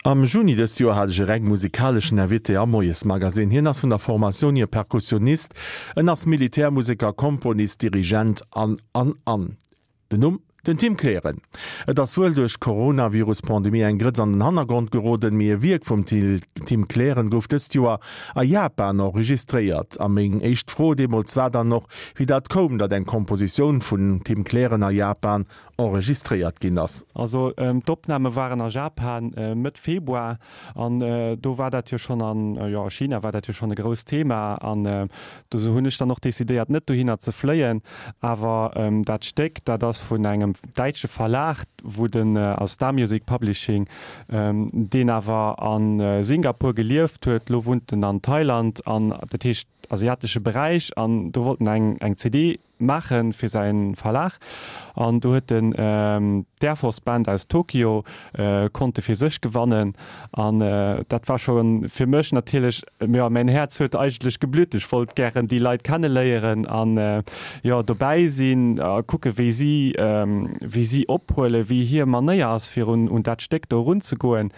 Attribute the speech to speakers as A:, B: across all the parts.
A: Am Juni dëst Joer hat ech e reng musikaleschen Invité am Moiesmagasinn. Hien ass vun der Formatioun hier Perkussionist, en ass Militärmuseker, Komponist, Dirigent an, an, an. Den Numm? Den Tim Kleren. Et ass wuel duerch d'Coronavirus-Pandemie eng Grëtz an den Hannergrond geroden, mee e Wierk vum Tim Kleren gouf dëst Joer a Japan enregistréiert. A meng éischt Fro deemools war dann och, wéi dat koum, datt eng Kompositioun vun Tim Kleren a Japan enregistréiert ginn ass.
B: Also d'Opname waren a Japan Mëtt Februar an do war dat jo schonn an, jo a China war dat jo schonn e grousst Thema an do hunn ech dann och decidéiert net dohinner ze fléien. Awer dat Stéck, dat ass vun engem däitsche Verlag, wou den, also Star Music Publishing, deen awer a Singapur gelieft huet, lo wunnt en an Thailand an dat heescht asiatesche Beräich an do wollt en eng eng CD maache fir säi Verlag an do huet en d'Air Force Band aus Tokio konnte fir sech gewannen an dat war scho fir mech natierlech, jo mäin Häerz huet eigentlech geblütt, ech wollt gären déi Leit kenneléieren an jo dobäi sinn a kucke wéi si wéi si ophuelen, wéi hir Manéier ass fir un un dat Stéck do erunzegoen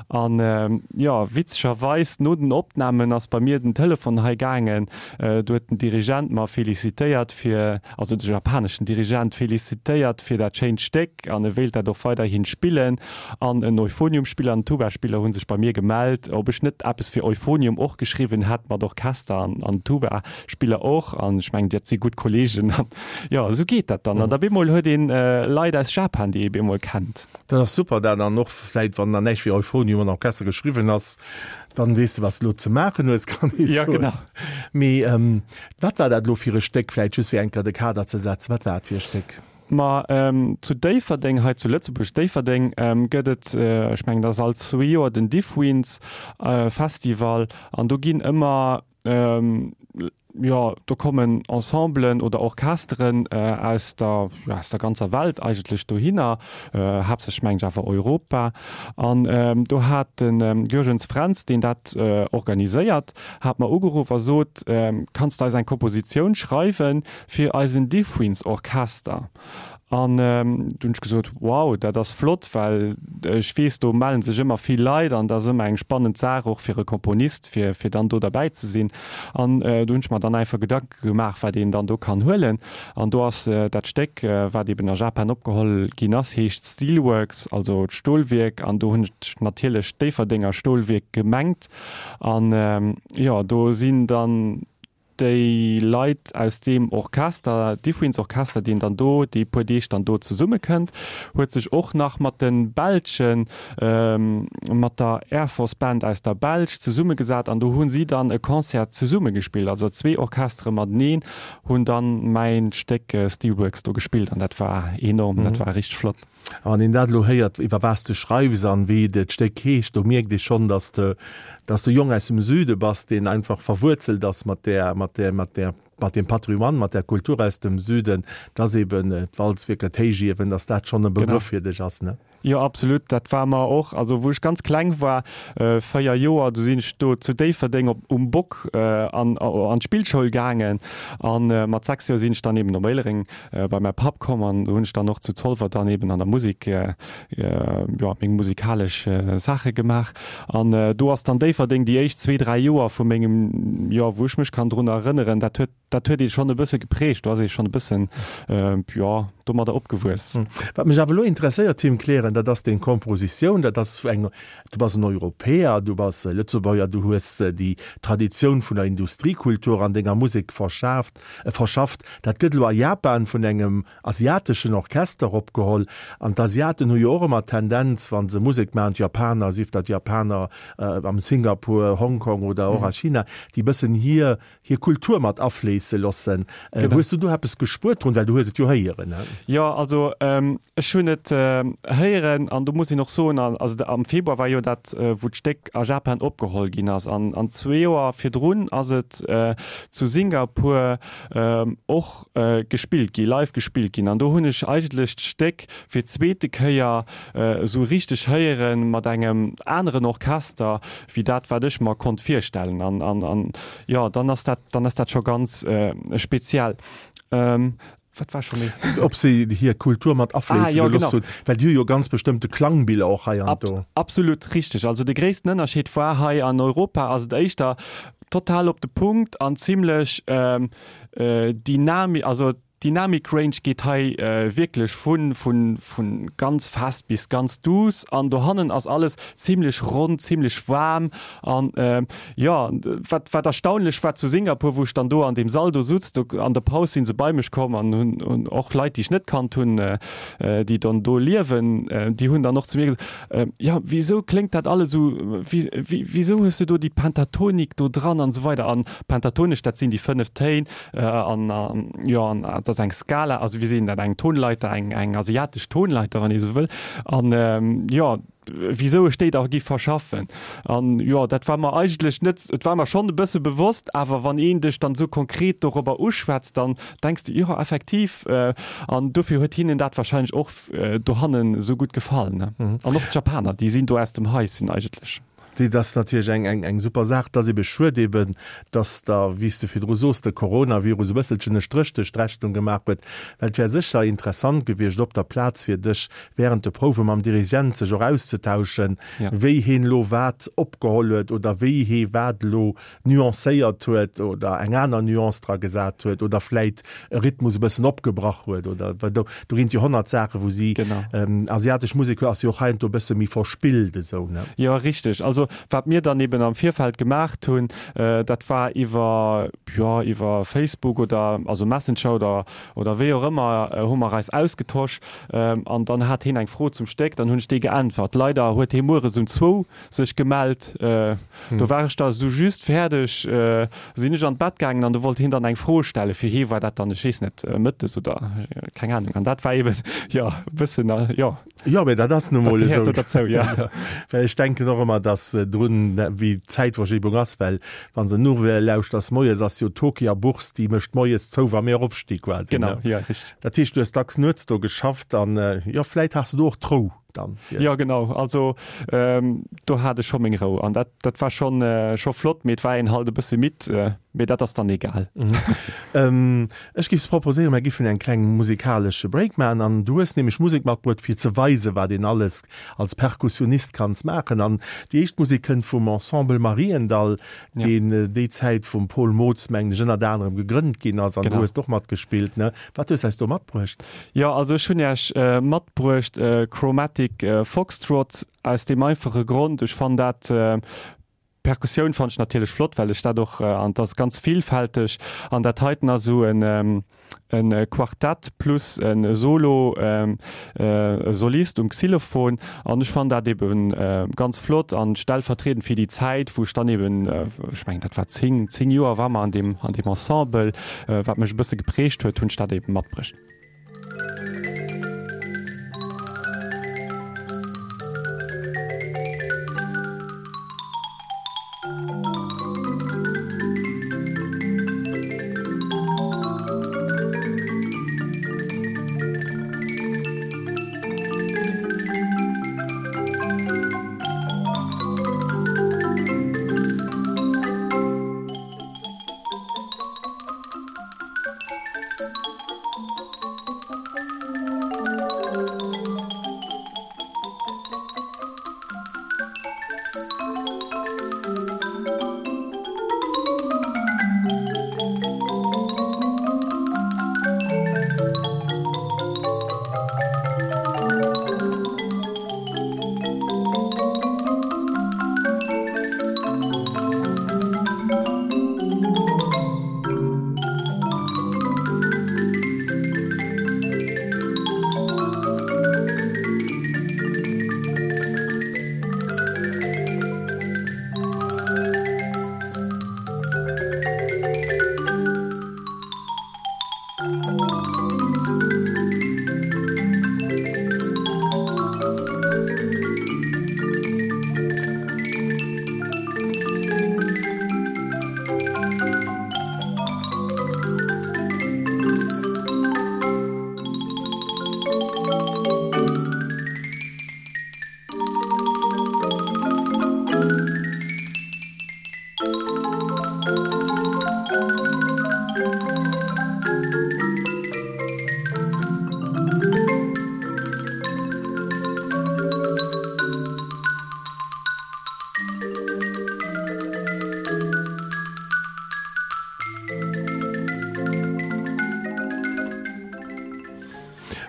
B: an jo witzegerweis no den Opnamen ass bei mir den Telefon hei gaangen Do huet den Dirigent mer felicitéiert fir, also de japaneschen Dirigent felicitéiert fir dat schéint Stéck an e wéilt dat och weiderhin spillen. An en Euphoniumspiller an en Tubaspiller hu sech bei mir gemellt, ob ech net eppes fir Euphonium och geschriwwen hätt mat Orchester an an Tubaspiller och. An ech mengen, dat si gutt Kollegen. An jo, esou geet dat dann. An da bemol huet een Leit aus Japan, déi ee bemol kennt.
A: Dat ass super, dat an och vläit, wann dann näischt fir Euphonium an Orchester geschriwwen ass, Dann weess de, wat s de elo ze maachen hues, kann ee
B: soen. Ja, genau.
A: Mee wat war dat elo fir e Stéck? Vläicht just fir eng Kéier de Kader ze setzen, wat war et fir e Stéck?
B: Ma zu Déifferdeng, hei zu Lëtzebuerg, Déifferdeng, gëtt et, ech mengen, dat ass all zwee Joer, den Diffwinds Festival. An do ginn ëmmer Jo, do kommen Ensemblen oder Orchesteren aus der, jo, aus der ganzer Welt eigentlech dohinner, haaptsächlech mengen ech awer Europa. An do hat de Jürgens Fränz, deen dat organiséiert, hat mer ugeruff a sot, Kanns de eis eng Kompositioun schreiwe fir eisen Diffwinds-Orchester? An du hunn ech gesot, wow, dat ass flott, well ech weess, do mellen sech ëmmer vill Leit an dat ass ëmmer eng spannend Saach och fir e Komponist, fir, fir dann do derbäi ze sinn. An do hunn ech mer dann einfach Gedanke gemaach, wat een dann do kann huelen. An do ass dat Stéck, wat eben a Japan opgeholl ginn ass, heescht Steelworks, also d'Stolwierk. An do hunn ech natierlech d'Déifferdenger Stolwierk gemengt. An jo, do sinn dann déi Leit aus deem Orchester, Diffwinds Orchester, deen dann do déi puer Deeg dann do zesummekënnt, huet sech och nach mat de Belschen, mat der Air Force Band aus der Belsch zesummegesat an do hu si dann e Concert zesumme gespillt. Also zwee Orchestere mateneen hunn dann mäin Stéck Steelworks do gespillt an dat war enorm, dat war richteg flott.
A: A wann een dat elo héiert, iwwer wat s de schreiws an wéi dat Stéck heescht, do mierkt ee schonn, dass de, dass de Jong aus dem Süde bass, deen einfach verwuerzelt ass mat där, mat där, mat där, mat deem Patrimoine, mat där Kultur aus dem Süden, dass eben d'Walzwierker, d'Héichiewen, dass dat schonn e Begrëff fir dech ass, ne?
B: Jo, absolut. Dat war mer och, also wou ech ganz kleng war, 4 Joer, du sinn ech do zu Déifferdeng op, um Bock an, an d'Spillschoul gaangen an mat 6 Joer sinn ech dann eben op Éilereng bei mäi Papp komm an do hunn ech dann och zu Zolwer dann eben an der Musek jo meng musikalesch Saache gemaach an do ass dann Déifferdeng déi éischt zwee, dräi Joer vu mengem, jo wou ech mech kann drun erënneren, dat huet dat huet ee schonn e bësse geprägt, do ass ee schonn e bëssen jo domadder opgewuess.
A: Wat mech awer elo interesséiert, Tim Kleren, dat ass deng Kompositioun, dat ass eng, du bass en Europäer, du bass Lëtzebuerger, du hues déi Traditioun vun der Industriekultur an denger Musek verschaaft, verschafft. Dat gëtt elo a Japan vun engem asiateschen Orchester opgeholl. An d'Asiaten hu jo och ëmmer d'Tendenz, wa se Musek maachen, d'Japaner, sief dat d'Japaner am Singapur, Hongkong oder och a China, déi bëssen hir, hir Kultur mat afléisse loossen. Hues du do eppes gespuert drun? Well du hues et jo héieren.
B: Jo, also ech hunn et héieren an do muss een och soen, also am Februar war jo dat, wou d'Stéck a Japan opgeholl ginn ass. An zwee Joer virdrun ass et zu Singapur och gespillt gi, live gespillt ginn. An do hunn ech eigentlech d'Stéck fir d'zweete Kéier esou richteg héiere mat engem aneren Orchester wéi dat, wat ech mer konnt virstellen. An, an, an jo, dann ass dat, dann ass dat scho ganz speziell. Wat war scho méi?
A: Ob se hir Kultur mat afléisse
B: ah, ja,
A: gelooss
B: genau.
A: hunn, well déi hu jo ganz bestëmmte Klangbiller och hei an
B: Ab,
A: do.
B: Absolut richteg. Also de gréissten Ënnerscheed war hei an Europa ass et éischter total op de Punkt an zimlech ähm, äh, dynami also d'Dynamik Range geet hei äh, wierklech vun, vun, vun ganz fest bis ganz duuss an dohannen ass alles zimlech ronn, zimlech waarm an jo, wat wat erstaunlech war zu Singapur, wou ech dann do an deem Sall do sutz, do an der Paus si se bei mech komm an hunn hunn och Leit, déi ech net kannt hunn, déi dann do liewen, déi hunn dann och zu mir gesot, jo wisou kléngt dat alles esou, wéi wéi wisou hues du do déi Pentatonik do dran an esou weider an pentatonesch, dat sinn déi 5 Téin an jo an dat ass eng Skala, also wéi seet een dat, eng Tonleiter, eng eng asiatesch Tonleiter, wann ee esou wëll an jo. wisou ech déi da giff verschaffen. An jo, dat war mer eigentlech net, et war mer schonn e bësse bewosst, awer wann een dech dann esou konkret dorobber uschwätzt, dann denks de, jo effektiv. An dofir huet hinnen dat wahrscheinlech och dohannen esou gutt gefall, ne. An och d'Japaner, déi sinn do aus dem Haischen eigentlech.
A: Dat ass natierlech eng, eng, eng super Saach. Et ass ebe schued eben, dass da, wéi s de virdru soos, de Coronavirus e bësselchen e Stréch duerch d'Rechnung gemaach huet, well et wär sécher interessant gewiescht, op der Plaz fir dech während de Prouwe mam Dirigent sech och auszetauschen, wéi heen elo wat opgeholl huet oder wéi hee wat elo nuancéiert huet oder eng aner Nuance dra gesat huet oder vläit e Rhythmus e bëssen opgebrach huet oder, well do, do ginn et jo 100 Saachen, wou si, asiatesch Musek ass jo och heiansdo e bësse méi verspillt esou, ne?
B: Jo, richteg. Also wat mir dann eben am Virfeld gemaacht hunn, dat war iwwer, jo, iwwer Facebook oder also Messenger oder, oder wéi och ëmmer, hu mer eis ausgetosch an dann hat heen eng Fro zum Stéck, dann hunn ech déi geäntwert. Leider huet hee mueres um zwou sech gemellt. Do war ech da sou just fäerdeg, sinn ech an d'Bett gaangen an do wollt hien dann eng Fro stellen. Fir hie war dat dann, ech weess net, mëttes oder keng Ahnung. An dat war eben, jo, e bëssen, jo.
A: Jo, mee dat ass nu
B: Dat
A: mol
B: gehéiert
A: esou.
B: do derzou, jo.
A: Well ech denken och ëmmer, dass drun, wéi d'Zäitverschibung ass, well wann s de Nouvelle lauschters moies, ass jo d'Hockey a Bourse, déi mécht moies zou, wa mir eropsti quasi,
B: Genau,
A: ne?
B: jo, richteg.
A: Dat heescht, du hues dacks nuets do geschafft an, jo, vläit has de do och d'Rou. dann.
B: Jo genau, also do hat ech scho meng Rou an dat dat war schonn scho flott, mee et war een halt e bësse midd, mee dat ass dann egal.
A: Ech giff proposéieren, mer giffen eng kleng musikalesche Break maachen an du hues nämlech Musek matbruet fir ze weisen, wat een alles als Perkussionist kanns maachen an déi éischt Musek kënnt vum Ensemble Mariendall, deen déi Zäit vum Paul Mootz mengen ech ënnert anerem gegrënnt ginn ass an du hues och matgespillt, ne? Wat hues eis do matbruecht?
B: Jo, also ech hunn Iech matbruecht Chromatic Foxtrot aus deem einfache Grond, ech fannen dat, d'Perkussioun fannen ech natierlech flott, well ech dat och, an et ass ganz villfälteg an dat heiten ass esou en e Quartett plus e Solo, e Solist um Xylophon an ech fannen dat ebe ganz flott an stellvertriedend fir déi Zäit, wou ech dann eben, ech mengen dat war 10, 10 Joer war mer an deem, an deem Ensemble, wat mech e bësse geprägt huet, hunn ech dat eben matbruecht.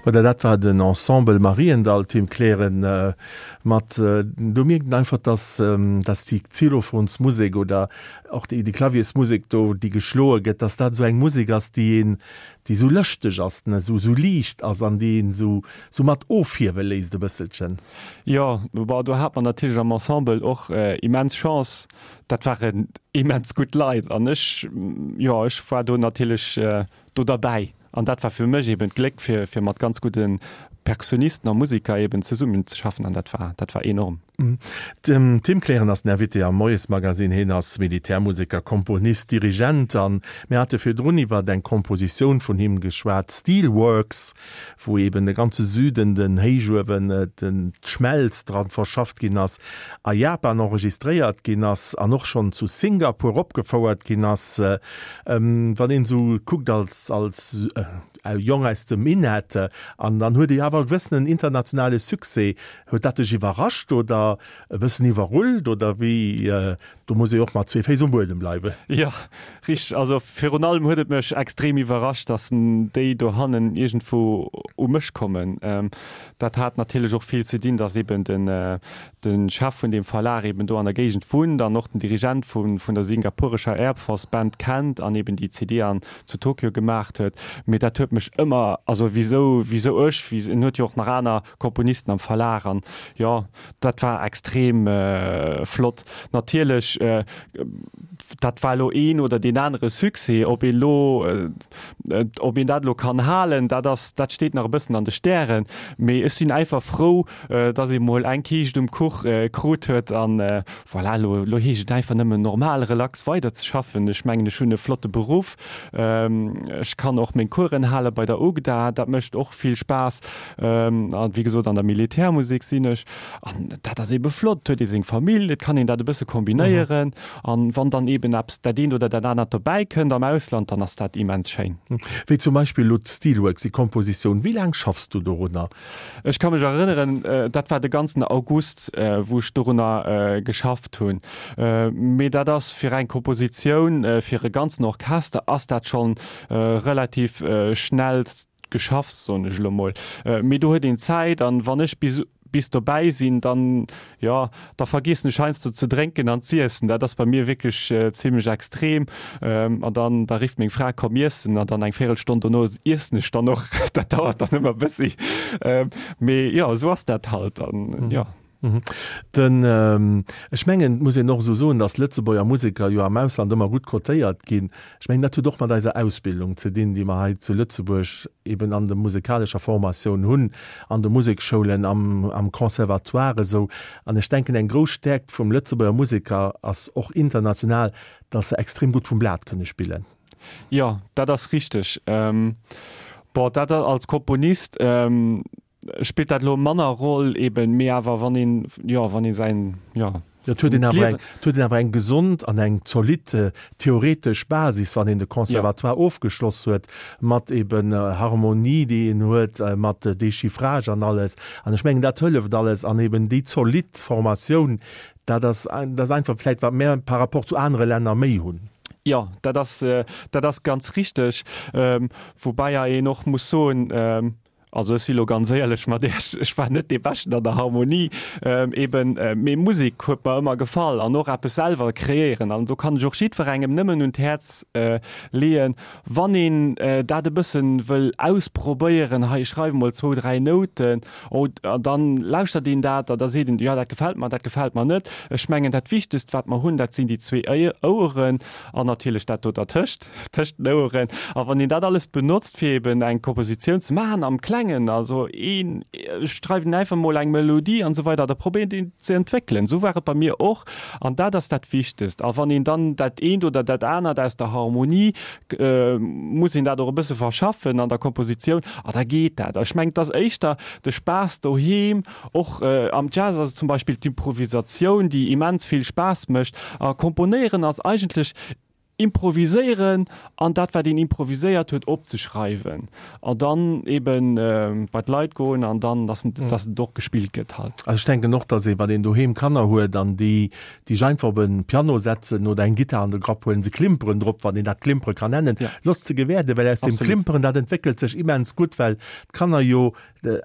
A: Voilà, dat war den Ensemble Mariendall, Tim Kleren, mat, do mierkt een einfach, dass, dass déi Xylophonsmusek oder och déi, déi Klaviersmusek do, déi geschloe gëtt, dass dat esou eng Musek ass, déi een, déi esou lëschteg ass, ne, esou, esou liicht ass an déi een esou, esou mat ofhiewe léisst e bësselchen.
B: Jo, bon, do hat mer natierlech am Ensemble och immens Chance, dat waren immens gutt Leit an ech, jo, ech war do natierlech do derbäi. An dat war fir mech eben d'Gléck, fir, fir mat ganz gudde Perkussionisten a Musiker eben zesummenzeschaffen an dat war, dat war
A: enorm. Den Tim Kleren ass den Invité am Moiesmagazine. Hien ass Militärmuseker, Komponist, Dirigent an mir hate virdrun iwwert eng Kompositioun vun him geschwat, Steelworks, wou eben de ganze Süden, den Héichuewen, den, d'Schmelz dran verschafft ginn ass, a Japan enregistréiert ginn ass an och schonn zu Singapur opgefouert ginn ass. Wann een esou kuckt als als Jong aus dem Minett, an dann huet ee awer e gewëssenen internationale Succès, huet dat dech iwwerrascht oder e bëssen iwwerrullt oder wéi? Do muss ee och mat zwee Féiss um Buedem bleiwen.
B: Jo, richteg. Also virun allem huet et mech extrem iwwerrascht, datt déi dohannen iergendwou u mech kommen. Dat hat natierlech och vill ze dinn, datt eben den de Chef vun deem Verlag eben do an der Géigend wunnt an och den Dirigent vun der singapurescher Air Force Band kennt an eben déi CD an zu Tokio gemaacht huet. Mee dat huet mech ëmmer, also wisou, wisou ech, en huet jo och nach aner Komponisten am Verlag an jo, dat war extrem flott. Natierlech, dat war elo een oder deen anere Succès, ob een elo, ob een dat elo kann halen, dat ass, dat steet nach e bëssen an de Stären. Mee ech sinn einfach frou, dass ee mol eng Kiischt um Kuch krut huet an voilà, elo, elo heescht et einfach nëmmen normal relax weider ze schaffen. Ech mengen, ech hunn e flotte Beruff, ech kann och meng Coursen hale bei der UGDA, dat mécht och vill Spaass an wéi gesot an der Militärmusek sinn ech an dat ass eebe flott, et huet ee seng Famill, et kann een dat e bësse kombinéieren an wann dann eeben eppes, dat eent oder dat anert dobäi kënnt am Ausland, dann ass dat immens schéin.
A: Wéi zum Beispill elo d'Steelworks, déi Kompositioun, wéi laang schaffs du dorunner?
B: Ech ka mech erënneren, dat war de ganzen August, wou ech dorunner geschafft hunn. Mee dat ass fir eng Kompositioun fir e ganzen Orchester ass dat schonn relativ schnell geschafft, soen ech elo mol. Mee do huet een Zäit an wann ech bis bis dobäi sinn, dann, jo, da vergeessen ech heiansdo ze drénken an z'iessen. Dat ass bei mir wierklech zimlech extrem. An dann, da rifft meng Fra, Komm iessen. An dann eng Véirelstonn dono iessen ech dann och. Dat dauert dann ëmmer e bëssi. Mee jo, esou ass dat halt. An jo.
A: Den, ech mengen, et muss een och esou soen, datt Lëtzebuerger Museker jo am Ausland ëmmer gutt cotéiert ginn. Ech mengen, dat huet och mat eiser Ausbildung ze dinn, déi mer hei zu Lëtzebuerg eben an der musekalescher Formatioun hunn, an de Musekschoulen, am, am Conservatoire esou. An ech denken, eng grouss Stäerkt vum Lëtzebuerger Museker ass och international, datt se extrem gutt vum Blat kënne spillen.
B: Jo, dat ass richteg. Bon, dat als Komponist spillt dat elo manner Roll eben, mee awer wann een, jo, wann ee säin, jo.
A: Et huet een awer eng, et huet een awer eng gesond an eng zolidd theoretesch Basis, wann een de Conservatoire ofgeschloss huet, mat eben Harmonie, déi een huet, mat Déchiffrage an alles. An ech mengen, dat hëlleft alles. An eben déi zolidd Formatioun, dat ass, dat ass einfach vläicht, wat mär par rapport zu anere Länner méi hunn.
B: Jo, dat ass, dat ass ganz richteg. Woubäi een och muss soen, Also ech si lo ganz éierlech mat Iech, ech war net dee Beschten an der Harmonie eben, mee Musek huet mer ëmmer gefall an och eppes selwer kreéieren. An do kann ech och jiddwerengem nëmmen un d'Häerz leeën, wann een dat e bëssen wëll ausprobéieren, hei ech schreiwe mol zwou, dräi Nouten, oh an dann lauschtert een dat an da seet een, jo dat gefält mer, dat gefält mer net. Ech mengen dat Wichtegst wat mer hunn, dat sinn déi zwee Oueren an natierlech dat do dertëscht. Tëscht den Oueren. A wann een dat alles benotzt, fir eben eng Kompositioun ze maachen am Klengen, also een schreift een einfach mol eng Melodie an esou weider, da probéiert een ze entwéckelen. Esou war et bei mir och an dat ass dat Wichtegst. A wann een dann dat eent oder dat anert aus der Harmonie, muss een dat och e bësse verschaffen an der Kompositioun a da geet dat. Ech mengen, et ass éischter de Spaass doheem, och am Jazz ass et zum Beispill d'Improvisatioun, déi immens vill Spaass mécht. A komponéieren ass eigentlech. Improviséieren an dat wat een improviséiert huet opzeschreiwen an dann eben bei d'Leit goen an dann dass dass et och gespillt gëtt halt.
A: Also ech denken och, dass ee wann een doheem Kanner huet an déi déi sech einfach op e Piano setzen oder eng Gittar an de Grapp huelen, se klimperen drop, wann een dat klimpere kann nennen, losst se gewäerden, well aus deem Klimperen dat entwéckelt sech immens gutt, well d'Kanner jo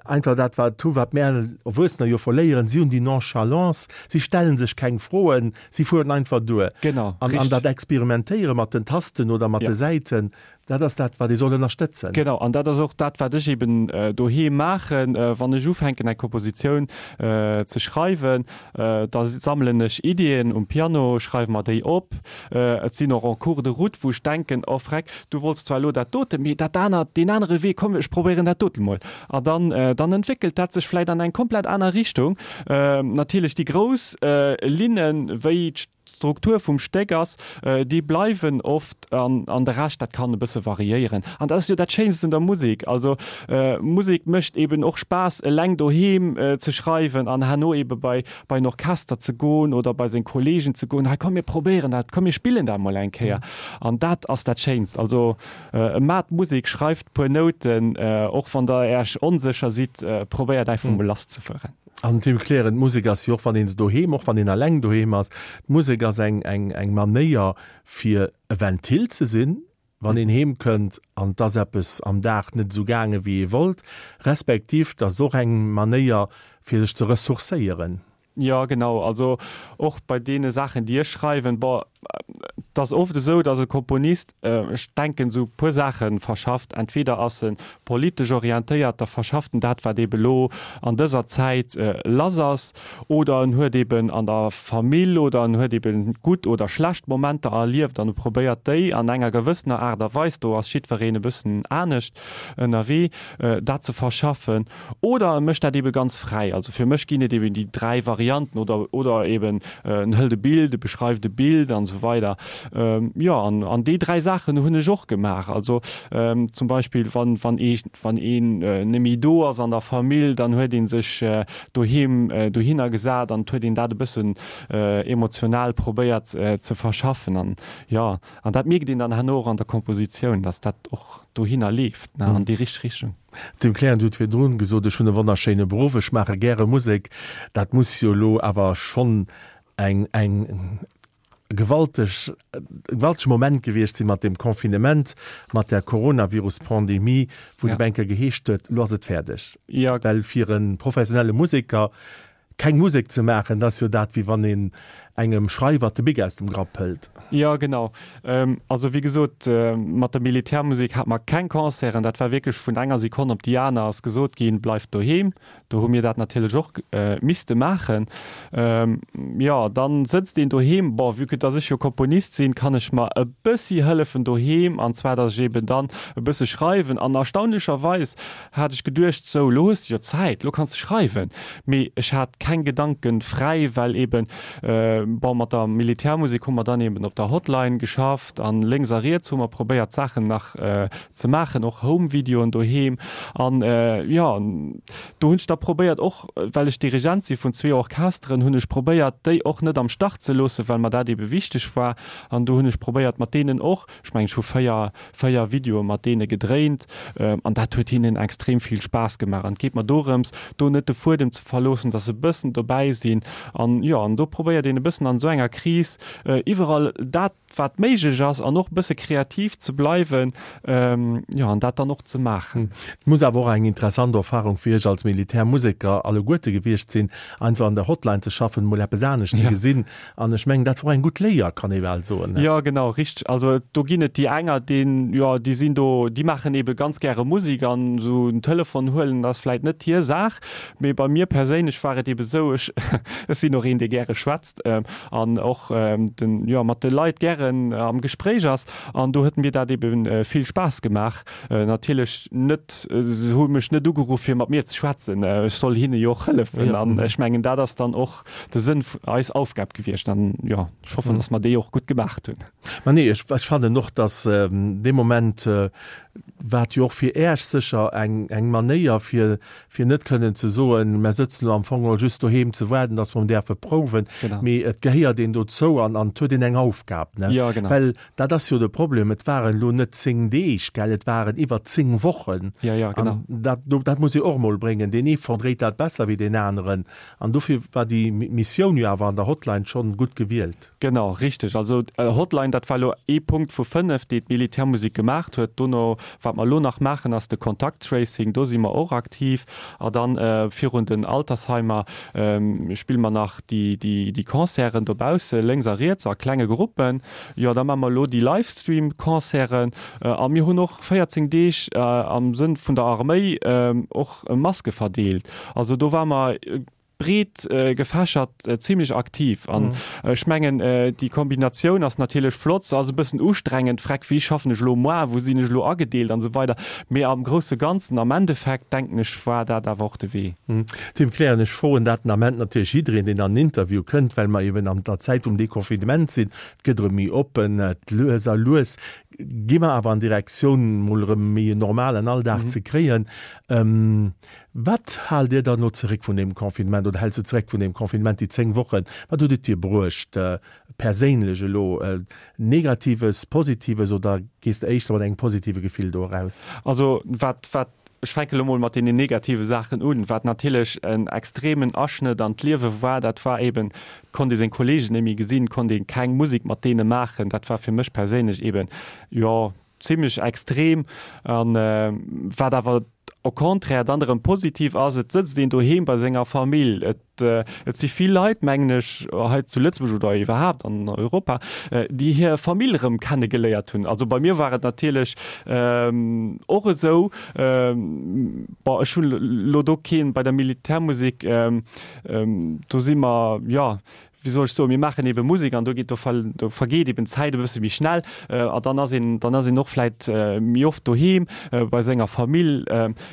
A: Einfach dat wat hu wat mär Erwuessener jo verléieren, si hunn déi Nonchalance, si stellen sech keng Froen, si fueren einfach duer.
B: Genau,
A: An an dat Experimentéiere mat den Tasten oder mat de Säiten, dat ass dat wat ee soll ënnerstëtzen.
B: Genau, an dat ass och dat wat ech eben doheem maachen, wann ech ufänken eng Kompositioun ze schreiwen, da sammelen ech Iddien um Piano, schreiwe mer déi op. Et sinn och en cours de route, wou ech denken, oh freck, du wollts zwar elo dat dote, mee dat anert, deen anere Wee, komm ech probéieren dat dote mol. An dann, dann entwéckelt dat sech vläit an eng komplett aner Richtung. Natierlech déi grouss Linnen, wéi d'Struktur vum Stéck ass, déi bleiwen oft an, an de Rescht, dat kann e bësse variéieren. An dat ass jo dat Schéinst un der Musek. Also Musek mécht eben och Spaass, eleng doheem ze schreiwen an herno ebe bei bei en Orchester ze goen oder bei seng Kollegen ze goen, hei komm mir probéieren dat, komm mir spillen dat mol eng Kéier. An dat ass dat Schéinst. Also maacht Musek, schreift puer Nouten, och wann der Äerch onsécher sidd, probéiert einfach mol lass ze fueren.
A: An Tim Kleren, d'Musek ass jo och wann een se doheem, och wann een eleng doheem ass, d'Musek ass eng eng eng Manéier fir e Ventil ze sinn, wann een heem kënnt an 't ass eppes am Dag net esou gaange wéi ee wollt, respektiv 't ass och eng Manéier fir sech ze ressourcéieren.
B: Jo, genau. Also och bei deene Saachen, déi ech schreiwen, bon, 't ass oft esou, datt e Komponist, ech denken, esou e puer Saache verschafft. Entweder ass e politesch orientéiert, da verschafft en dat, wat eebe lo an dëser Zäit lass ass, oder en huet eben an der Famill oder en huet eben gutt oder schlecht Momenter erlieft an e probéiert déi an enger gewëssener Aart a Weis, do ass jiddwereen e bëssen anescht ënnerwee, dat ze verschaffen. Oder e mécht dat ebe ganz fräi. Also fir mech ginn et eben déi 3 Varianten oder oder eben en hëlt e Bild, e beschreift e Bild an esou weider. Jo, an an déi 3 Saachen hunn ech och gemaach. Also zum Beispill wann wann ee wann een neméi do ass an der Famill, dann huet ee sech doheem dohinner gesat an et huet een dat e bëssen emotional probéiert ze verschaffen. An jo, an dat mierkt een dann herno och an der Kompositioun, dass dat och dohinner leeft, ne, an déi richteg Richtung.
A: Tim Klein, Du hutt virdrun gesot, ech hunn e wonnerschéine Beruff, ech maache gäre Musek. Dat muss jo elo awer schonn eng eng gewalteg, e gewaltege Moment gewiescht sinn mat deem Confinement, mat där Coronavirus-Pandemie, wou et op eng Kéier geheescht huet, elo ass et fäerdeg. Well fir e professionelle Museker keng Musek ze maachen, dat ass jo dat, wéi wann een engem Schreiwer de Bic aus dem Grapp hëlt.
B: Jo, genau. Also wéi gesot, mat der Militärmusek hate mer keng Concerten. Dat war wierklech vun enger Sekonn op déi aner ass gesot ginn, Bleift doheem. Do hu mir dat natierlech och misste maachen. Jo, dann sëtzt een doheem. Bon, vue que dass ech jo Komponist sinn, kann ech mer e bëssi hëllefen doheem, an zwar dass ech eben dann e bësse schreiwen. An erstaunlecherweis hat ech geduecht, sou, lo hues de jo Zäit, lo kanns de schreiwen. Mee ech hat keng Gedanken fräi, well eben, bon, mat der Militärmusek hu mer dann eben op der Hotline geschafft an lénks a riets hu mer probéiert Saachen nach ze maachen, och Home-Videoen doheem. An jo, do hunn ech da probéiert, och well ech Dirigent si vun zwee Orchesteren, hunn ech probéiert, déi och net am Stach ze loossen, well mer dat ebe wichteg war. An do hunn ech probéiert, mat deenen och, ech mengen, ech hu 4, 4 Videoe mat deene gedréint an dat huet hinnen extrem vill Spaass gemaach. An et geet mer dorëms, do net de Fuedem ze verloossen, dass se e bëssen dobäi sinn. An jo, an do probéiert een e bëssen an esou enger Kris iwwerall dat, wat méiglech ass an och e bësse kreativ ze bleiwen, jo, an dat dann och ze maachen.
A: Et muss awer och eng interessant Erfahrung fir Iech als Militärmuseker alleguerte gewiescht sinn, einfach an der Hotline ze schaffen, mol eppes anescht ze gesinn An ech mengen, dat wor eng gutt Léier, kann ee bal soen.
B: Jo, genau, richteg. Also do ginn et déi enger, deen, jo, déi sinn do, déi maachen eebe ganz gäre Musek an esou en Telefon huelen ass vläit net hir Saach. Mee bei mir perséinlech war et eebe sou, ech, ech sinn och een, dee gäre schwätzt an och den, jo, mat de Leit gären am Gespréich ass. An do huet mir dat eebe vill Spaass gemaach. Natierlech net, se hu mech net ugeruff, fir mat mir ze schwätzen, ech soll hinne jo och hëllefen. An ech mengen, dat ass dann och de Sënn vun eis Aufgab gewiescht an jo, ech hoffen, dass mer déi och gutt gemaacht hunn.
A: Ma nee, ech, ech fannen och, dass dee Moment war et jo och fir Äech sécher eng, eng Manéier, fir, fir net kënnen ze soen, mer sëtzen elo am Fong geholl just doheem ze waarden, dass mer däerfe prouwen, mee et gehéiert een dozou an, an et huet een eng Aufgab, ne? Jo, genau. Well dat ass jo de Problem, et waren elo net 10 Deeg, gell, et waren iwwer 10 Wochen.
B: Jo, jo, genau.
A: An dat, dat muss ee och emol bréngen. Deen ee verdréit dat besser wéi deen aneren. An dofir war déi Missioun jo awer an der Hotline schonn gutt gewielt.
B: Genau, richteg. Also Hotline, dat war elo ee Punkt vu 5, déi d'Militärmusek gemaacht huet. Dono, wat mer elo nach maachen, ass de Kontakt-Tracing, do si mer och aktiv. A dann virun den Altersheimer spille mer nach déi Concerten dobausse lénks a riets a klenge Gruppen. Jo, da maache mer elo déi Livestream-Concerten. A mir hunn och 14 Deeg am Sënn vun der Arméi och Maske verdeelt. Also do ware mer breet gefächert zimlech aktiv. An ech mengen, déi Kombinatioun ass natierlech flott. Se ass e bëssen ustrengend, freck, wéi schaffen ech elo moar, wou sinn ech elo agedeelt an esou weider. Mee am grousse Ganzen, am Endeffekt, denken ech, war dat awer och de Wee.
A: Tim Kleren, Ech froen dat den Ament natierlech jiddereen, deen an en Interview kënnt, well mer eben an der Zäit vum Deconfinement sinn. Et gëtt erëm méi oppen, et lues a lues gi mer awer an Direktioun, mol erëm méi en normalen Alldag ze kréien. Wat haalt Dir dann elo zeréck vun deem Confinement oder häls du zeréck vun deem Confinement, déi 10 Wochen? Wat huet et dir bruecht perséinlech elo, Negatives, Positives oder gees de éischter mat engem positive Gefill do eraus?
B: Also wat, wat, ech fänke elo mol mat deenen negative Saachen un, wat natierlech en extremen Aschnëtt an d'Liewe war, dat war eben, et konnt ee seng Kollegen net méi gesinn, et konnt ee keng Musek mat deene maachen. Dat war fir mech perséinlech eben, jo, zimlech extrem an wat awer au contraire dann erëm positiv ass, et sëtzt een doheem bei senger Famill. Et et si vill Leit, mengen ech, hei zu Lëtzebuerg oder iwwerhaapt an Europa, déi hir Famill erëm kennegeléiert hunn. Also bei mir war et natierlech och esou, bon ech hunn elo do keen bei der Militärmusek, do si mer, jo, wéi soll ech soen, mir maachen ebe Musek an do geet, do do vergeet eben d'Zäit e bësse méi schnell a dann ass een, dann ass een och vläit méi oft doheem bei senger Famill.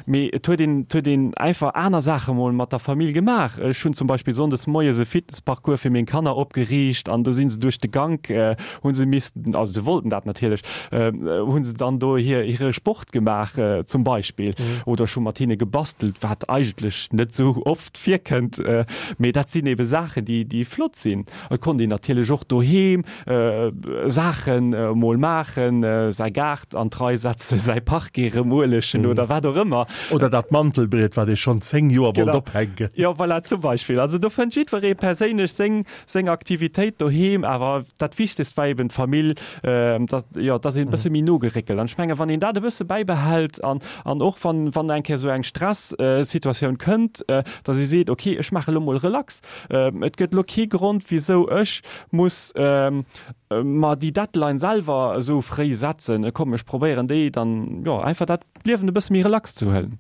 B: Mee et huet een, et huet een einfach aner Saache mol mat der Famill gemaach. Ech hunn zum Beispill sonndes moies e Fitnessparcours fir meng Kanner opgeriicht an do si se duerch de Gank, hu se missten, also se wollten dat natierlech, hu se dann do hir hire Sport gemaach zum Beispill oder ech hu mat hinne gebastelt, wat eigentlech net esou oft virkënnt, mee dat sinn ebe Saachen, déi, déi flott sinn. Et konnt een natierlech och doheem Saachen emol maachen, säi Gaart an d'Rei setzen, säi Parquet erëm uelegen oder wat och ëmmer.
A: Oder dat Mantelbriet, wat ee schonn 10 Joer wollt ophänken.
B: Jo, voilà, zum Beispill. Also do fënnt jiddweree perséinlech seng, seng Aktivitéit doheem. Awer dat Wichtegst war eben d'Famill, dass, jo, dass een e bësse méi no geréckelt. An ech mengen, wann een dat e bësse bäibehält an, An och wann, wann eng Kéier esou eng Stressituatioun kënnt, datt ee seet, okay, ech maache lo mol relax, et gëtt lo kee Grond, wisou ech muss mer déi Deadline selwer esou fréi setzen. Komm, ech probéieren déi dann, jo, einfach dat Liewen e bësse méi relax ze huelen.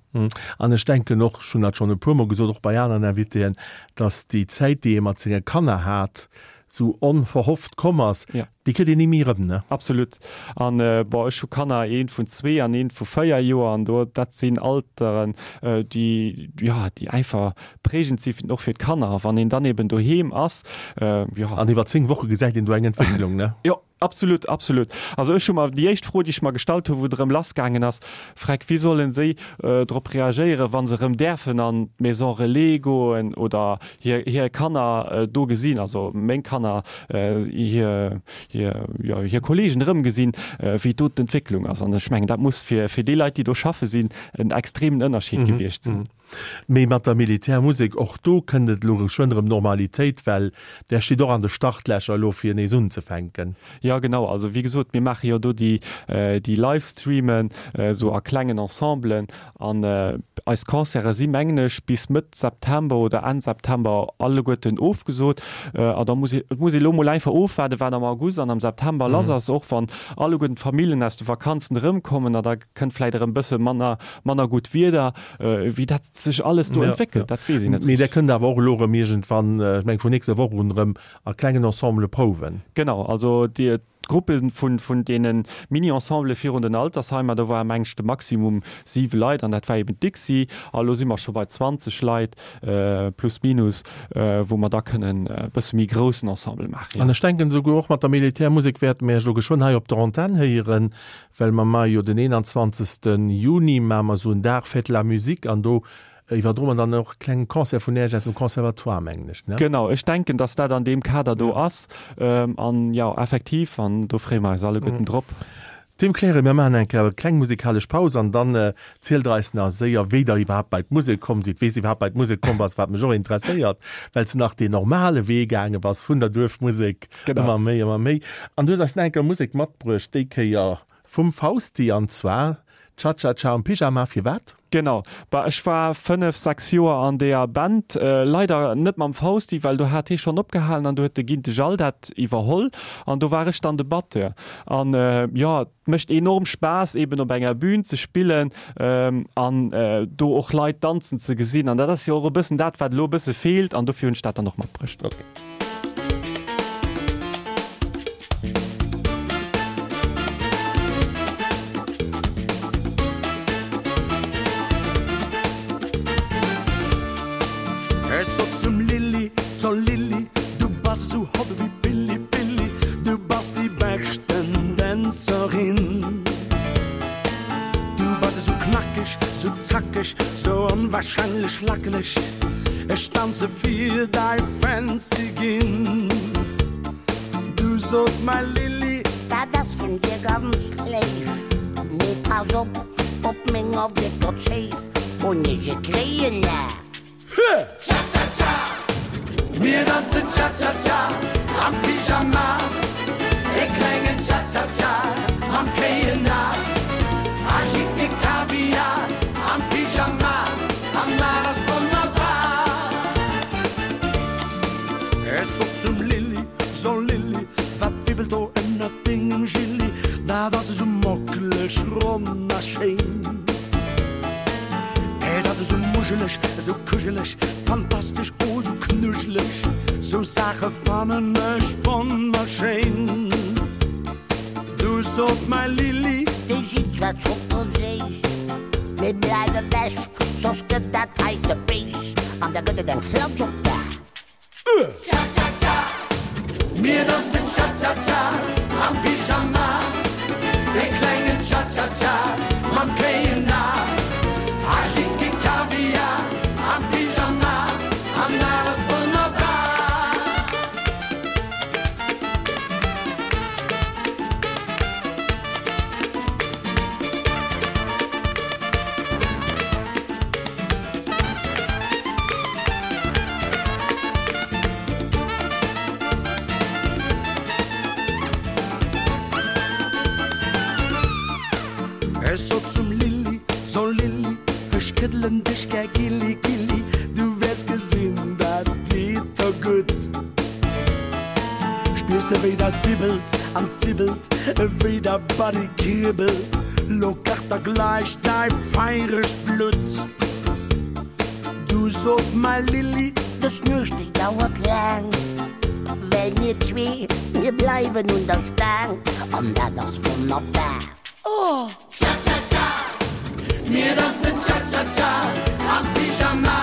A: An ech denken och, ech hunn dat schonn e puermol gesot, och bei aneren Invitéen, datt déi Zäit, déi ee mat senge Kanner hat, sou onverhofft komm ass, déi kritt een ni méi erëm, ne?
B: Absolut. An bon, ech hu Kanner, eent vun zwee an eent vu véier Joer, an do, dat sinn Alteren, déi, jo, déi einfach prägend si och fir d'Kanner. A wann een dann eben doheem ass, jo.
A: An iwwer 10 Woche gesäit een do eng Entwécklung, ne?
B: Jo, absolut, absolut. Also ech hu mer, déi éischt Fro, déi ech mer gestallt hu wou et erëm lassgaangen ass, Freck, wéi sollen si drop reagéieren, wa se erëm däerfen an d'Maison Relais goen oder hir, hir Kanner do gesinn, also meng Kanner, hir, hir, jo, hir Kollegen erëmgesinn, wéi do d'Entwécklung ass. An ech mengen, dat muss fir, fir déi Leit, déi do schaffe sinn, en extremen Ënnerscheed gewiescht sinn.
A: Mee mat der Militärmusek, och do kënnt et elo geschwënn erëm Normalitéit, well där steet och an de Startlächer elo fir nees unzefänken.
B: Jo, genau. Also wéi gesot, mir maache jo do déi, déi Livestreamen esou a klengen Ensemblen An eis Concerte si mengen ech bis Mëtt September oder Enn September alleguerten ofgesot. A da muss ee, et muss ee lo mol einfach ofwaarden, wat am August an am September lass ass, och wann alleguerten d'Familljen aus de Vakanzen erëmkommen a da kënnt vläit erëm e bësse manner, manner gutt Wieder. Wéi dat sech alles do entwéckelt, dat weess een net
A: Mee där kënnt awer och elo erëm iergendwann, ech mengen vun nächster Woch un erëm a klengen Ensemble prouwen.
B: Genau, also déi, D'Gruppe vun deene Mini-Ensembele virun den Altersheimer, do ware meng ech de Maximum 7 Leit an dat war eben d'Dixi. A lo si mer scho bei 20 Leit, plus minus, wou mer da kënnen e bësse méi groussen Ensemble maachen.
A: An ech denken esouguer och mat der Militärmusek wäerte mir Iech elo geschwënn hei op der Antenn héieren, well mer maache jo den 21. Juni maache mer esou en Dag Fête de la Musique an do. Iwwerdroen an dann och e klengen Concert vun Äech aus dem Conservatoire, mengen ech, ne?
B: Genau, ech denken, dass dat an deem Kader do ass. An jo, effektiv, an do freeë mer eis alleguerten drop.
A: Tim Clare, mir maachen eng Kéier e kleng musikalesch Paus an dann zielt Der eis nach séier, wéi Der iwwerhaapt bei d'Musek komm sidd, wéi s de iwwerhaapt bei d'Musek komm bass, wat mech och interesséiert, well s de nach deen normale Wee gaange bass vun der Duerfmusek, ëmmer méi, ëmmer méi. An du hues eis nach eng Kéier Musek matbruecht, déi Kéier Vum Fausti an zwar Cha Cha Cha am Pyjama. Firwat?
B: Genau, bah ech war 5, 6 Joer an deeër Band, leider net mam Fausti, well do hat hee schonn opgehalen an do huet de Ginte Jall dat iwwerholl an do war ech dann de Batteur. An jo, et mécht enorm Spaass eben op enger Bühn ze spillen an do och Leit danzen ze gesinn an dat ass jo och e bëssen dat wat elo e bësse feelt an dofir hunn ech dat dann och matbruecht.
C: Ech sot zum Lilli, so Lilli, du bass sou hot ewéi Pilli, Pilli, du bass déi beschten Dänzerin. Du bass esou knackeg, sou zackeg, sou onwahrscheinlech lackeleg, ech danze fir dei Fancy ginn. Du sot mäi Lilli.
D: Dat ass vun dir ganz léif, mee pass op, op menger décker Zéif hunn ech e kréien A.
C: Cha-cha-cha, mir danzen Cha-cha-cha am Pyjama, e klengen Cha-cha-cha mam kéien A. A jick e Kaviar am Pyjama, an dat ass wonnerbar. Ech sot zum Lilli, So Lilli, wat wibbelt do ënnert dengem Gilli? Dat ass esou mockeleg ronn a schéin. Et ass esou muscheleg, esou kuscheleg, fantastesch, oh esou knuscheleg. Sou Saache fannen ech wonnerschéin. Du sot mäi Lilli.
D: Déi sinn zwar zockerséiss, mee bleif ewech, soss gëtt dat heite béis an da gëtt et eng Flatsch op d'A.
C: Cha-cha-cha, mir danzen Cha-cha-cha am Pyjama, e klengen Cha-cha-cha mam kéien A. A Schicki Kaviar am Pyjama, an dat ass wonnerbar. Ech sot zum Lilli, So Lilli, ech këddelen dech gär gilli, gilli, du wäers gesinn, dat geet der gutt. Spiers de wéi dat wibbelt an zibbelt, wéi der Body kribbelt, lo kacht der gläich däi feiregt Blutt. Du sot mäi Lilli.
D: Dës Nuecht déi dauert laang, well mir zwee, mir bleiwen un der Staang an dat ass wonnerbar. Oh!
C: Cha-cha-cha, mir danzen Cha-cha-cha am Pyjama,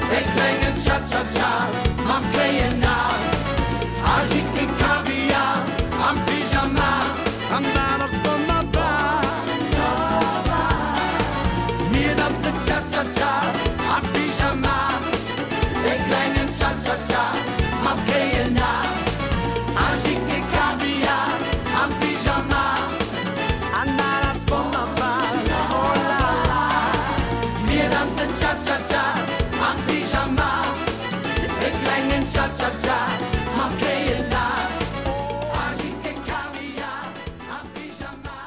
C: e klengen Cha-cha-cha mam kéien A, a jick e Kaviar am Pyjama an dat ass wonnerbar. Mir danzen Cha-cha-cha am Pyjama, e klengen Cha-cha-cha mam kéien A, a jick e Kaviar am Pyjama an dat ass wonnerbar. Oh la la, mir danzen Cha-cha-cha am Pyjama, e klengen Cha-cha-cha mam kéien A, a jick e Kaviar am Pyjama.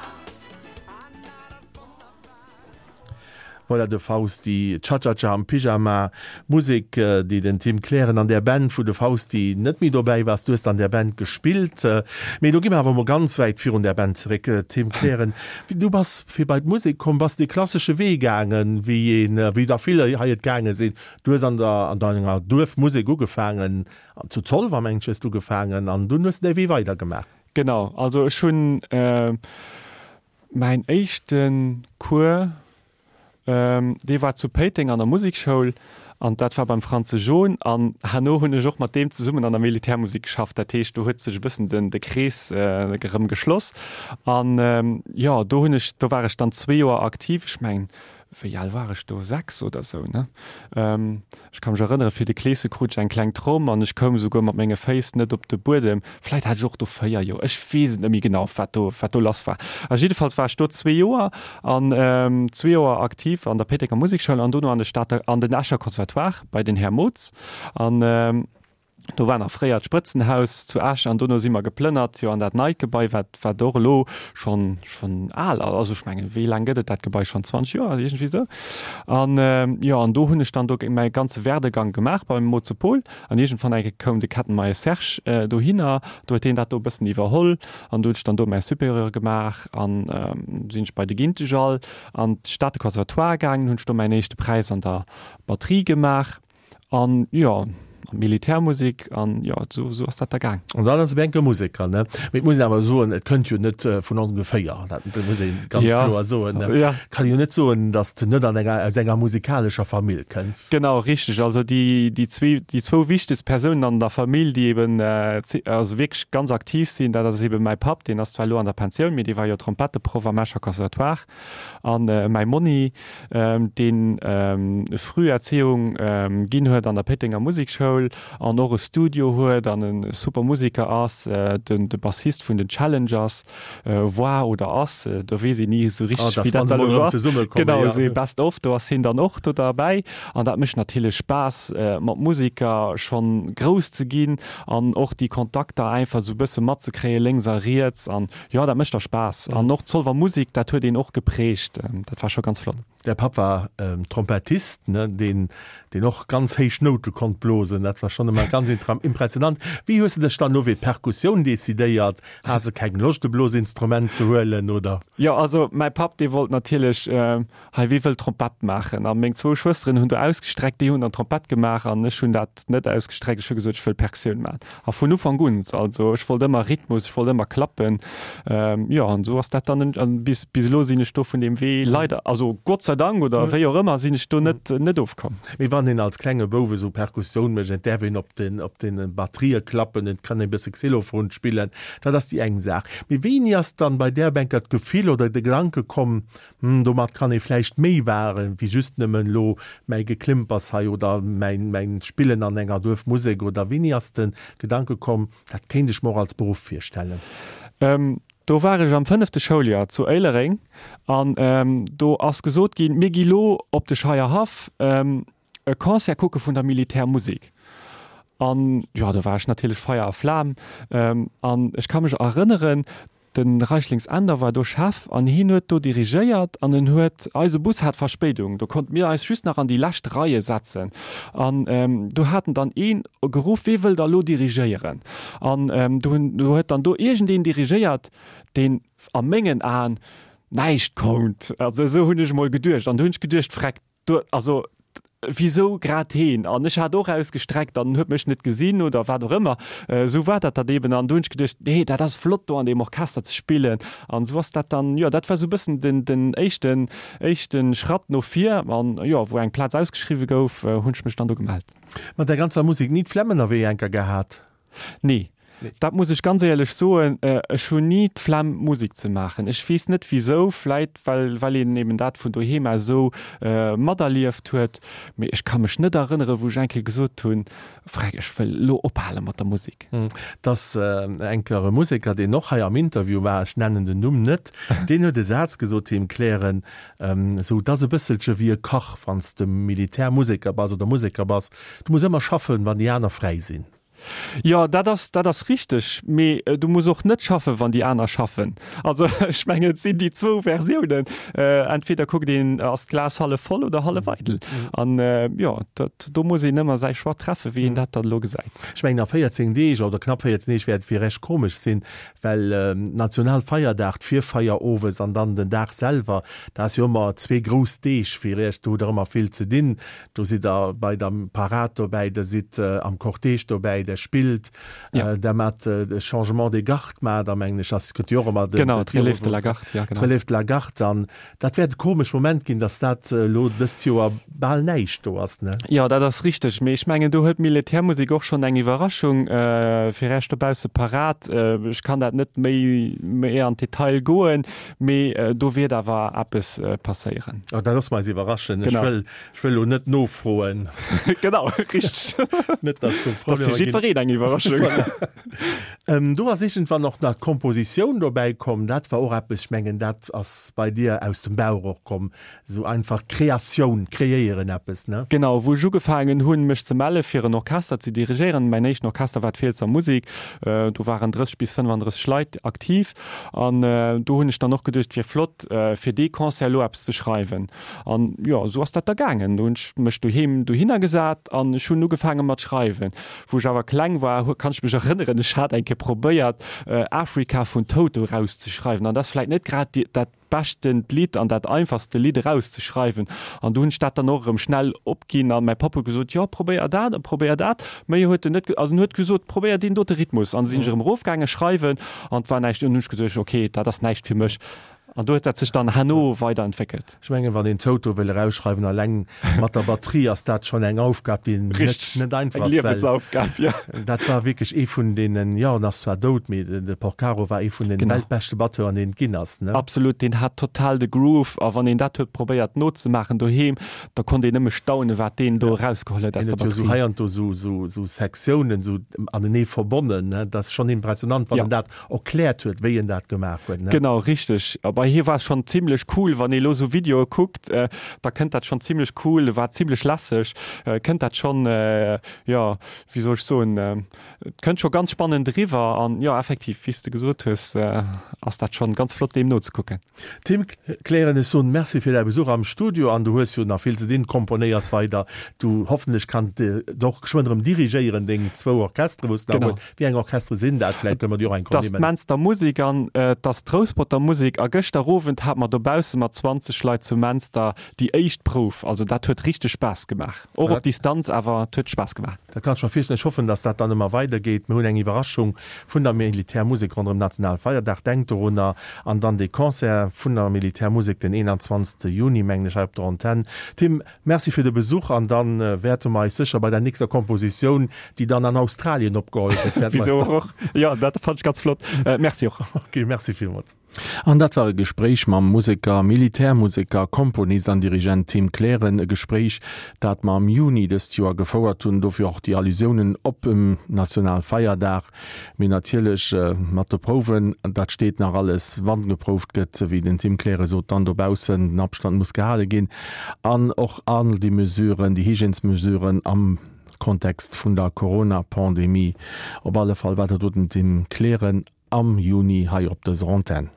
A: Voilà de Fausti, Cha-Cha-Cha am Pyjama, Musek déi den Tim Kleren an där Band wou de Fausti net méi dobäi war, du hues an där Band gespillt. Mee elo gi mer awer emol ganz wäit virun där Band zeréck, Tim Kleren. Du bass fir bei d'Musek komm, bass de klassesche Wee gaangen, wéi een, wéi der vill hei et gaange sinn. Du hues an der, an denger Duerfmusek ugefaangen, zu Zolwer mengen ech hues du ugefaangen an dunn hues de däi Wee weidergemaach.
B: Genau, also ech hunn mäin éischte Cours, dee war zu Péiteng an der Musekschoul an dat war beim Franze John an herno hunn ech och mat deem zesummen an der Militärmusek geschafft. Dat heescht, do huet sech e bëssen den de Krees erëm geschloss an jo, do hunn ech, do war ech dann zwee Joer aktiv, ech mengen. Wéi al war ech do? 6 oder sou, ne? Ech ka mech erënnere, fir de Kleese krut ech eng kleng Tromm an ech koum esouguer mat menge Féiss net op de Buedem. Vläit hat ech och do 4 Joer, ech weess et net méi genau, wat do, wat do lass war. A jiddefalls war ech do zwee Joer an zwee Joer aktiv an der Péitenger Musekschoul an dono an de Stater, an den Escher Conservatoire bei den Här Mootz. An Do war nach fréier d'Sprëtzenhaus zu Esch an dono si mer geplënnert, jo, an dat neit Gebai, wat, wat och elo schonn, schonn al ass. Also ech mengen, wéi laang gëtt et dat Gebai schonn? 20 Joer, iergendwéi esou. An, jo, an do hunn ech dann do mäi ganze Werdegang gemaach beim Moze Paul. An iergendwann eng Kéier koum de Kettenmeyer Serge dohinner, do huet deen dat do e bëssen iwwerholl an do hunn ech dann do mäi Supérieur gemaach an sinn ech bei de Gintegall an d'Stater Conservatoire gaangen, hunn ech do mäin éischte Präis an der Batterie gemaach. An jo, an Militärmusik an jo, esou esou ass dat da gaang.
A: An dann ass e enke Museker, ne? Mee et muss een awer soen, et kënnt jo net vun ongeféier, dat muss ee ganz
B: Ja,
A: kloer soen, ne?
B: ja.
A: Kann jo net soen, datt s de net an enger, aus enger musikalescher Famill kënns.
B: Genau, richteg. Also déi, déi zwee, déi zwou wichtegst Persounen an der Famill, déi eben also wierklech ganz aktiv sinn, dat ass eben mäi Papp, deen ass zwar elo an der Pensioun, mee dee war jo Trompetteproff am Escher Conservatoire, An mäi Monni, deen Früherziehung ginn huet an der Péitenger Musekschoul an och e Studio huet an e super Museker ass, de Bassist vun den Challengers war oder ass, do weess een ni esou richteg, wéi dat dann elo ass. Genau, esou ee Best of, do ass hien dann och do derbäi. An dat mécht natierlech Spaass, mat Museker schonn grouss ze ginn an och déi Kontakter einfach esou e bësse matzekréien, lénks a riets. An Jo, dat mécht da Spaass. An och d'Zolwer Musik, dat huet een och geprägt. Dat war scho ganz flott.
A: Däi Papp war Trompettist, ne, deen, deen och ganz héich Noute konnt blosen. Dat war schonn ëmmer ganz impressionant. Wéi hues de dech dann elo fir d'Perkussioun decidéiert? Has de keng Loscht, e Blosinstrument ze huelen, oder?
B: Jo, also mäi Papp, dee wollt natierlech Hei, wie wëll Trompett maachen? A meng zwou Schwësteren hunn do ausgestreckt, déi hunn dann Trompett gemaach an ech hunn dat net ausgestreckt. Ech hu gesot, ech wëll Perkussioun maachen. A vun Ufank un, also ech wollt ëmmer Rhythmus, ech wollt ëmmer klappen. Jo, an esou ass dat dann, an bis, bis elo sinn ech do vun deem Wee leider, also Gott sei Dank oder wéi och ëmmer, sinn ech do net, net ofkomm.
A: Mee wann een als klenge Bouf esou Perkussioun mécht, et däerf een op den, op den Batterië klappen, et kann ee bësse Xylophon spillen, dat ass déi eng Saach. Mee wéini ass dann bei där Bänker d'Gefill oder de Gedanke komm, Hm, domat kann ee vläicht méi waren, wéi just nëmmen elo mäi Geklimpers hei oder mäin, mäin Spillen an enger Duerfmusek oder wéini ass de Gedanke komm, dat kéint ech mer och als Beruff virstellen?
B: Do war ech am fënnefte Schouljoer zu Éilereng an do ass gesot ginn, mir gi lo op de Scheierhaff e Concert kucke vun der Militärmusek. An jo, do war ech natierlech Feier a Flam an ech ka mech erënneren, De Reichlings Änder war do Chef an hien huet do dirigéiert an en huet, eise Bus hat Verspéidung, do konnte mir eis just nach an déi lescht Reie setzen an do hat en dann een geruff, wee wëll da lo dirigéieren? An do hunn, do huet dann do iergendeen dirigéiert, deen a mengen Aen näischt konnt, also esou hunn ech emol geduecht an do hunn ech geduecht, Freck, Do, also, wisou grad heen? An ech hat och ausgestreckt an en huet mech net gesinn oder wat och ëmmer. Esou war dat dann eben. An do hunn ech geduecht, nee, dat ass flott do an deem Orchester ze spillen. An esou ass dat dann, jo, dat war esou e bëssen den, den éischten, éischte Schratt no vir. An jo, wou eng Plaz ausgeschriwwe gouf, hunn ech mech dann do gemellt.
A: Mat der ganzer Musek ni d'Flemm ënnerwee enker gehat?
B: Nee, dat muss ech ganz éierlech soen, ech hunn ni d'Flemm Musek ze maachen. Ech weess net wisou, vläit well well een eben dat vun doheem aus esou materlieft huet, mee ech ka mech net erënnere wou ech eng Kéier gesot hunn, Freck, ech wëll elo ophale mat der Musek.
A: Dass eng Kéier e Museker, deen och hei am Interview war, ech nennen den Numm net, deen huet e Saz gesot, Tim Kleren, esou, 't ass e bësselche wéi e Kach, wann s de Militärmuseker bass oder Museker bass, du muss ëmmer schaffen, wann déi aner fräi sinn.
B: Jo, dat ass, dat ass richteg. Mee du muss och net schaffen, wann déi aner schaffen. Also ech mengen, et sinn déi zwou Versiounen. Entweder kuckt een, ass d'Glas hallef voll oder hallef eidel. An jo, dat, do muss een ëmmer säi Choix treffen, wéi een dat dann elo gesäit.
A: Ech mengen, a 14 Deeg oder knapp 14 Deeg wäert et fir Iech komesch sinn, well Nationalfeierdag, d'Virfeier owes an dann den Dag selwer, dat ass jo ëmmer zwee grouss Deeg fir Iech, do hutt Der ëmmer vill ze dinn. Do sidd der bei der Parad dobäi, der sidd am Cortège dobäi, der. Militär spillt, der mat de Changement des gardes mat, a mengen ech ass gëtt jo och ëmmer
B: den, Genau, d'Relève de la garde,
A: ja genau. D'Relève de la garde an dat wäert e komesch Moment ginn, datt dat elo dëst Joer bal näischt do ass, ne?
B: Jo, dat ass richteg, mee ech mengen do huet d'Militärmusek och schonn eng Iwwerraschung fir Iech dobausse parat. Ech kann dat net méi méi an d'Detail goen, mee do wäert awer eppes passéieren.
A: Oh, da loosse mer eis iwwerraschen. Ech wëll Ech wëll elo net nofroen.
B: Genau, richteg.
A: Net, dass do
B: Problemer ginn. Dat ass fir jiddwereen eng Iwwerraschung.
A: Voilà. Do ass iergendwann och nach d'Kompositioun dobäi komm. Dat war och eppes, ech mengen, dat ass bei dir aus dem Bauch och komm, esou einfach Kreatioun, kreéieren eppes, ne?
B: Genau, wou ech ugefaangen hunn, mech ze melle fir en Orchester ze dirigéieren. Mäin éischten Orchester war d'Fielsser Musik. Do waren 30 bis 35 Leit aktiv. An do hunn ech dann och geduecht, et wier flott, fir dee Concert elo eppes ze schreiwen. An jo, esou ass dat da gaangen. Do hunn ech mech doheem dohinner gesat an ech hunn ugefaange mat schreiwen. Wou ech awer kleng war, kann ech mech erënneren, ech hat eng Kéier probéiert, Africa vun Toto erauszeschreiwen. An dat ass vläit net grad dat beschtent Lidd an dat einfachste Lidd erauszeschreiwen. An du hunn ech dat dann och erëm schnell opginn a mäi Papp huet gesot, jo, probéier dat a probéier dat. Méi huet en net, also en huet gesot, probéier deen dote Rhythmus. An du sinn ech erëm erofgaange schreiwen an et war näischt. An hunn ech geduecht, okay, dat ass näischt fir mech. An do huet dat sech dann herno weiderentwéckelt.
A: Ech mengen, wann een Toto wëll erausschreiwen, alleng mat der Batterie, ass dat schonn eng Aufgab, déi net, net einfach ass.
B: Eng Liewensaufgab, jo.
A: Dat war wierklech ee vun deenen, jo, en ass zwar dout, mee de Porcaro war ee vun den weltbeschte Batteuren, deen et ginn ass, ne?
B: Absolut, deen hat total de Groove. A wann een dat huet probéiert nozemaachen doheem, da konnt een nëmme staunen, wat deen do erausgeholl huet aus
A: der
B: Batterie.
A: Hien huet jo esou heiansdo esou, esou Sektiounen esou anenee verbonnen, ne? Dat ass schonn impressionant, wann en dat erkläert huet, wéi en dat gemaach huet, ne?
B: Genau, richteg. A bei hir war es schonn zimlech cool, wann ee lo sou Videoe kuckt, da kënnt dat schonn zimlech cool, war zimlech lässeg, kënnt dat schonn, jo, wéi soll ech soen, et kënnt scho ganz spannend eriwwer. An jo, effektiv, wéi s de gesot hues, ass dat schonn ganz flott deem nozekucken.
A: Tim Kleren, ech soen Merci fir däi Besuch am Studio an du hues jo nach vill ze dinn, komponéiers weider, du hoffentlech kann de och geschwënn erëm dirigéieren deng zwou Orchestere wou s de nach hues. Wéi eng Orchestere sinn dat? Vläicht kënne mer déi och eng
B: Kéier nimmen. 't ass d'Menster Musek an 't ass d'Rousperter Musek a gëschter Owend hate mer dobausse mat 20 Leit zu Menster déi éischt Prouf. Also dat huet richteg Spaass gemaach, och op Distanz, awer 't huet Spaass gemaach.
A: Dat kann ech mer virstellen. Ech hoffen, dass dat dann ëmmer weider geet. Mir hunn eng Iwwerraschung vun der Militärmusek ronderëm Nationalfeierdag. Denkt dorunner. An dann dee Concert vun der Militärmusek den 21. Juni, mengen ech, hei op der Antenn. Tim, Merci fir de Besuch an dann wäerte mer eis sécher bei der nächster Kompositioun, déi dann an Australien opgeholl gëtt,
B: wäerte mer eis dann. Och? Jo, dat fand ech ganz flott. Merci och.
A: Ok, merci villmools. An dat war e Gespréich mam Museker, Militärmuseker, Komponist an Dirigent Tim Kleren. E Gespréich, dat mer am Juni dëst Joer gefouert hunn. Dofir och déi Allusiounen op dem Nationalfeierdag. Mee natierlech mat de Prouwen, dat steet nach alles, wann geprouft gëtt, wéi den Tim Klere sot, dann dobaussen, den Abstand muss gehale ginn an och all déi Mesuren, déi Hygiènesmesuren am Kontext vun der Corona-Pandemie. Op alle Fall war dat do den Tim Kleren am Juni hei op dëser Antenn.